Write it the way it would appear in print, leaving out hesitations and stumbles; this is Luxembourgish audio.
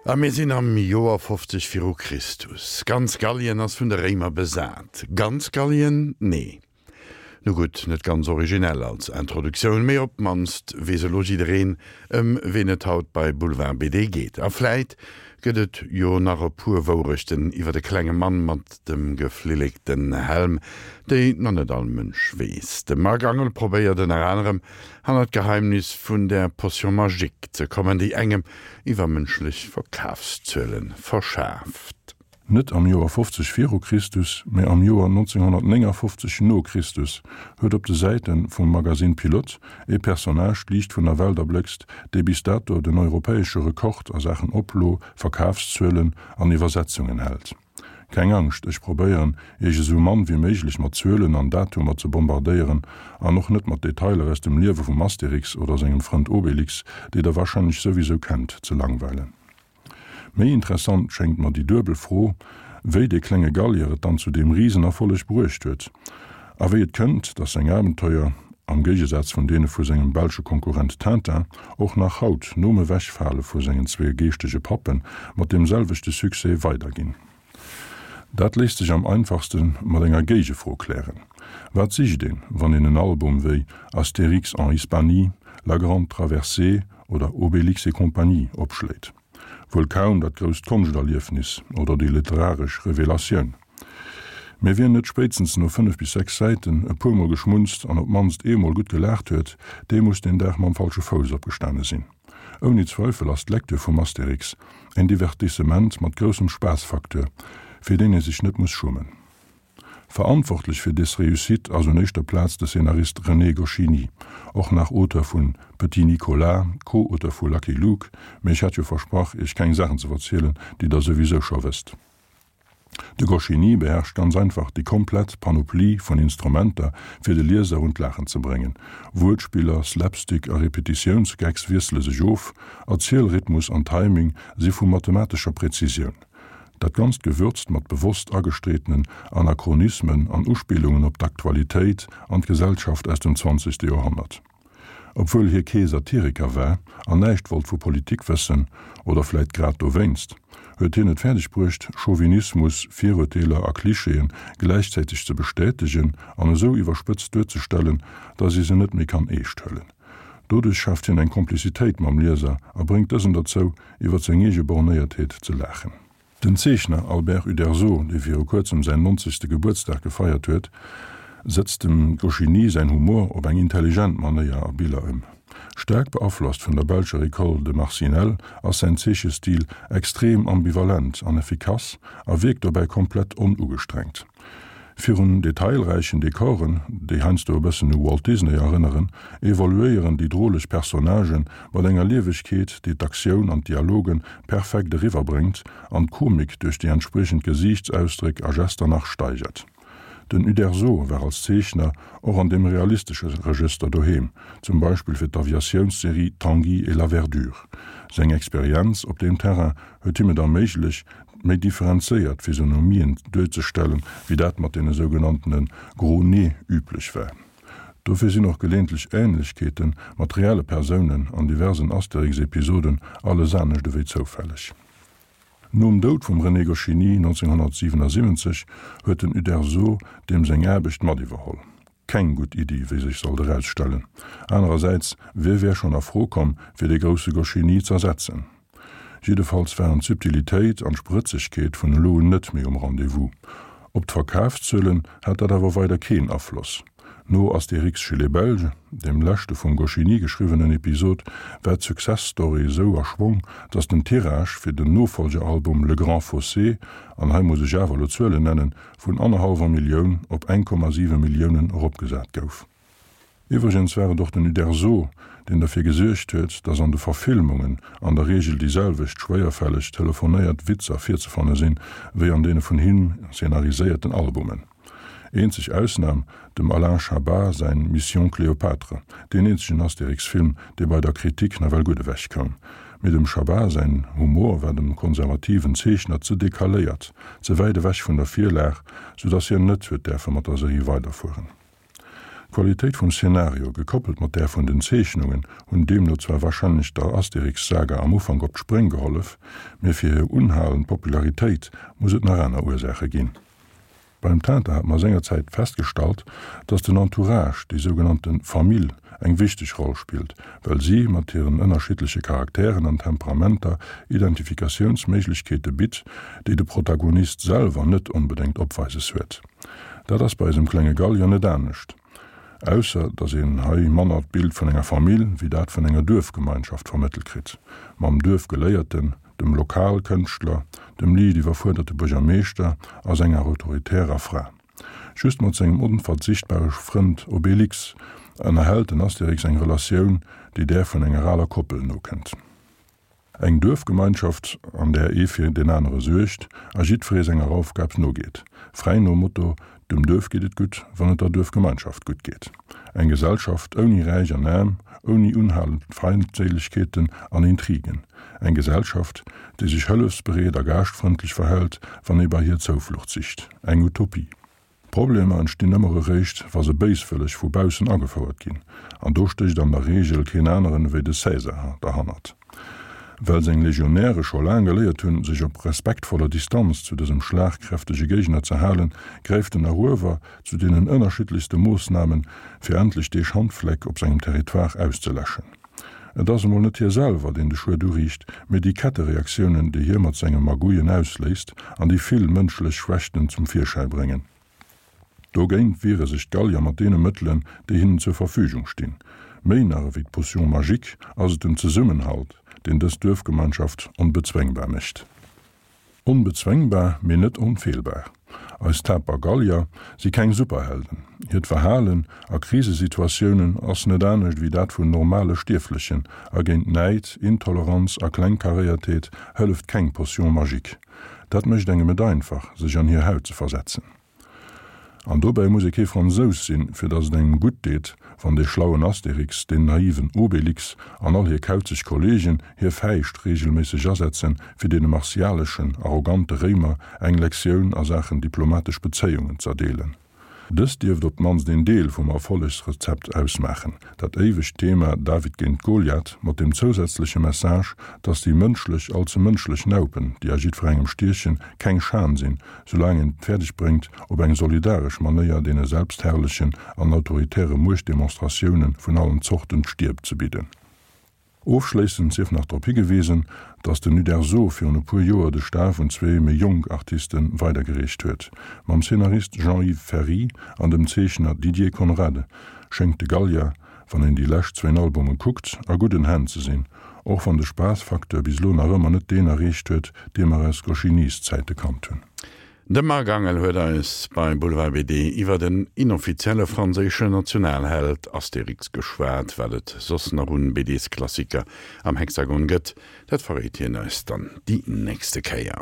A mir sinn am Joer 50 viru Christus. Ganz Gallien ass vun de Réimer besat. Ganz Gallien? Nee. Nu gutt, net ganz originell als Introduktioun, mee op d'mannst weess elo jiddereen, ëm ween et haut bei Boulevard BD geet. A vläit gëtt et jo nach e puer Wourechten iwwer de klenge Mann mat dem geflillekten Helm, déi nach net all Mënsch weess. De Marc Angel probéiert ënner anerem, hannert d'Geheimnis vun der Potion magique ze kommen, déi engem iwwermënschlech Verkafszuele verschaaft. Net am Joer 50 viru Christus, mä am Joer 1959 no Christus huet op de Säite vum Magazine Pilote ee Personnage d'Liicht vun der Welt erbléckst, dee bis dato den europäesche Rekord a Saachen Oplo, Verkafszuelen an Iwwersetzungen hält. Keng Angscht, ech probéieren, Iech esou mann wéi méiglech mat Zuelen an Datumer ze bombardéieren an och net mat Detailer aus dem Liewe vum Astérix oder sengem Frënd Obélix, déi der warscheinlech souwisou kennt, ze langweilen. Méi interessant schéngt mer déi duebel Fro, wéi dee klenge Gallier et dann zu deem Risenerfolleg bruecht huet, a wéi et kënnt, datt seng Abenteuer, am Géigesaz vun deene vu sengem belsche Konkurrent Tintin, och nach haut, nom Ewechfale vu sengen zwee geeschtege Pappen, mat deem selwechte Succès weiderginn. Dat léisst sech am einfachste mat enger Géigefro klären, Wat sicht een, wann een en Album wéi Astérix en Hispanie, La Grande Traversée oder Obélix et compagnie opschléit? Wuel kaum dat grousst Konschterliefnis oder déi literaresch Revelatioun. Mee wien net spéitstens no 5 bis 6 Säiten e puermol geschmunzt an op d'mannst eemol gutt gelaacht huet, dee muss deen Dag mam falsche Fouss opgestane sinn. Ouni Zweifel ass d'Lecture vum Astérix en Divertissement mat groussem Spaassfacteur, fir deen ee sech net muss schummen. Verantwortlech fir des Réussite ass un éischter Plaz de Scénarist René Goscinny, och nach Auteur vun Petit Nicolas, Co-Auteur vu Lucky Luke, mee ech hat jo versprach, iech keng Saachen ze verzielen, déi der souwisou scho wësst. De Goscinny beherrscht ganz einfach déi komplett Panoplie vun Instrumenter, fir de Lieser un d'Laachen ze bréngen. Wuertspiller, Slapstick a Repetitiounsgags wiessele sech of, Erzielrhythmus an Timing si vu mathematescher Präzisioun. Dat Ganzt gewürzt mat bewosst agestreetenen Anachronismen an Uspillungen op d'Aktualitéit an d'Gesellschaft aus dem zwanzegste Joerhonnert. Obwuel hie kee Satiriker war an näischt wollt vu Politik wëssen, oder vläit grad dowéinst, huet hien et fäerdeg bruecht, Chauvinismus, Virurteeler a Klischeeë gläichzäiteg ze bestätegen an esou iwwerspëtzt duerzestellen, datt ee se net méi kann eescht huelen. Doduerch schaaft hien eng Komplizitéit mam Lieser a bréngt dësen derzou, iwwer seng eege Bornéiertheet ze laachen. Den Zeechner Albert Uderzo, dee viru kuerzem säin nonzegste Gebuertsdag gefeiert huet, sëtzt dem Goscinny säin Humor op eng intelligent Manéier a Biller ëm. Staark beaflosst vun der belscher École de Marcinelle ass säin Zeechestil extrem ambivalent an effikass a wierkt dobäi komplett onugestrengt. Virun detailräichen Dekoren, déi heiansdo e bëssen u Walt Disney erënneren, evoluéieren déi droleg Personnagen mat enger Liewegkeet, déi d'Aktioun an d'Dialoge perfekt eriwwerbréngt an d'Komik duerch déi entspriechend Gesiichtsausdréck a Gester nach steigert. Den Uderzo war als Zeechner och an deem realistesche Regëster doheem, zum Beispill fir d'Aviatiounsserie Tanguy et la Verdure. Seng Experienz op deem Terrain huet him et erméiglecht, méi differenzéiert Physionomien duerzestellen, wéi dat mat deene sougenanntene gros nez üblech war. Dofir sinn och geleeëntlech Ähnlechkeete mat reelle Persounen an diversen Astérix-Episoden alles anescht ewéi zoufälleg. Nom Doud vum René Goscinny 1977 huet den Uderzo deem seng Aarbecht mat iwwerholl. Keng gutt Iddi, wéi sech sollt erausstellen. Anerersäits, wie wär schonn a Fro komm, fir dee grousse Goscinny z'ersetzen? Jiddefalls waren d'Subtilitéit an d'Sprëtzegkeet vun elo un net méi um Rendez-vous. Op d'Verkafszuelen hat dat awer weider keen Afloss. No Astérix chez les Belges, dem leschte vum Goscinny geschriwwenen Episod, war d'Success-Story esou a Schwong, datt den Tirage fir den Nofollgealbum Le Grand Fossé, an hei muss ech awer elo Zuelen nennen, vun annerhallwer Millioun op 1,7 Milliounen eropgesat gouf. Iwwregens war et och den Uderzo, deen derfir gesuergt huet, datt an de Verfilmungen an der Reegel déi selwecht schwéierfälleg telefonéiert Witzer virzefanne sinn, wéi an deene vun him szenariséierten Albumen. Eenzeg Ausnam, dem Alain Chabat säin Mission Cléopâtre, deen eenzegen Astérix-Film, dee bei der Kritik nawell gutt ewech koum. Mee dem Chabat säin Humor war dem konservativen Zeechner ze decaléiert, ze wäit ewech vun der Virlag, sou datt hien net huet däerfe mat der Serie weiderfueren. D'Qualitéit vum Szenario, gekoppelt mat där vun den Zeechnungen, hunn deemno zwar warscheinlech der Asterix-Saga am Ufank op d'Spréng gehollef, mee fir hir unhalend Popularitéit muss et nach aner Ursaache ginn. Beim Tintin hat mer sengerzäit festgestallt, dass den Entourage, déi sougenannte Famill, eng wichteg Roll spillt, well si mat hiren ënnerschiddleche Charakteren an Temperamenter Identifikatiounsméiglechkeete bitt, déi de Protagonist selwer net onbedéngt opweises huet. Dat ass bei eisem klenge Gallier net anescht, ausser dass een hei manner d'Bild vun enger Famill wéi dat vun enger Duerfgemeinschaft vermëttelt kritt, mam Duerfgeléierten, dem Lokalkënschtler, dem liicht iwwerfuerderte Buergermeeschter a senger autoritärer Fra. Just mat sengem onverzichtbare Frënd Obélix ënnerhält den Astérix eng Relatioun, déi där vun enger aler Koppel nokënnt. Eng Duerfgemeinschaft, an där ee fir deen anere suergt a jiddweree senger Aufgab nogeet, fräi nom Motto, Dem Duerf geet et gutt, wann et der Duerfgemeinschaft gutt geet. Eng Gesellschaft ouni Räich an Aarm, ouni unhalend Feindséilegkeeten an Intrigen. Eng Gesellschaft, déi sech hëllefsbereet a gaaschtfrëndlech verhält, wann ee bei hir Zouflucht sicht. Eng Utopie. Problemer entstinn ëmmer eréischt, wa se béiswëlleg vu baussen agefouert ginn. An do stécht an der Reegel keen aneren ewéi de Cäsar derhannert. Well seng Legionäre scho laang geléiert hunn, sech op respektvoller Distanz zu dësem schlagkräftege Géigner ze halen, gräift den Eruewer zu deenen ënnerschiddlechste Moossnamen, fir endlech dee Schandfleck op sengem Territoire auszeläschen. Et ass emol net hie selwer, deen de Schued uriicht, mee déi Kettereaktiounen, déi hie mat senge Magouillen ausléist an déi vill mënschlech Schwächten zum Virschäi bréngen. Dogéint wiere sech d'Gallier mat deene Mëttelen, déi hinnen zur Verfügung stinn. Méi nach ewéi d'Potion magique ass et den Zesummenhalt, deen dës Duerfgemeinschaft onbezwéngbar mécht. Onbezwéngbar, mee net onfeelbar. Eis taper Gallier si keng Superhelden. Hiert Verhalen a Krisesituatiounen ass net anescht ewéi dat vun normale Stierflechen a géint Näid, Intoleranz a Klengkaréiertheet hëlleft keng Potion magique. Dat mécht engem et einfach, sech an hir Haut ze versetzen. An dobäi muss ee kee Fransous sinn, fir datt et engem gutt deet, wann dee schlauen Astérix, deen naiven Obélix an all hir kauzeg Kollegen hir Fäischt reegelméisseg asetzen, fir deene martialeschen, arrogante Réimer eng Lektioun a Saachen diplomatesch Bezéiungen z'erdeelen. Dëst dierft op d'mannst een Deel vum Erfollegsrezept ausmaachen, dat éiwegt Thema David géint Goliath mat dem zousätzleche Message, dass déi mënschlech, allze mënschlech Naupen, déi a jiddwerengem stiechen, keng Schan sinn, soulaang een et fäerdeg bréngt, op eng solidaresch Manéier deene selbstherrlechen an autoritäre Muechtdemonstratioune vun allen Zorten d'Stier ze bidden. Ofschléissend sief nach drop higewisen, datt den Uderzo virun e puer Joer de Staf un zwee méi jonk Artiste weidergereecht huet. Mam Szenarist Jean-Yves Ferri an dem Zeechner Didier Conrad schéngt de Gallier, wann een déi lescht zwéin Albume kuckt, a gudden Hänn ze sinn, och wann de Spaassfacteur bis elo nach ëmmer net deen erreecht huet, dee mer aus Goscinny's-Zäite kannt hunn. De Marc Angel huet eis bei Boulevard BD iwwer den inoffizielle franséischen Nationalheld Astérix geschwat. Wat et soss nach un BDs-Klassiker am Hexagon gëtt, dat verréit hien eis dann déi nächste Kéier.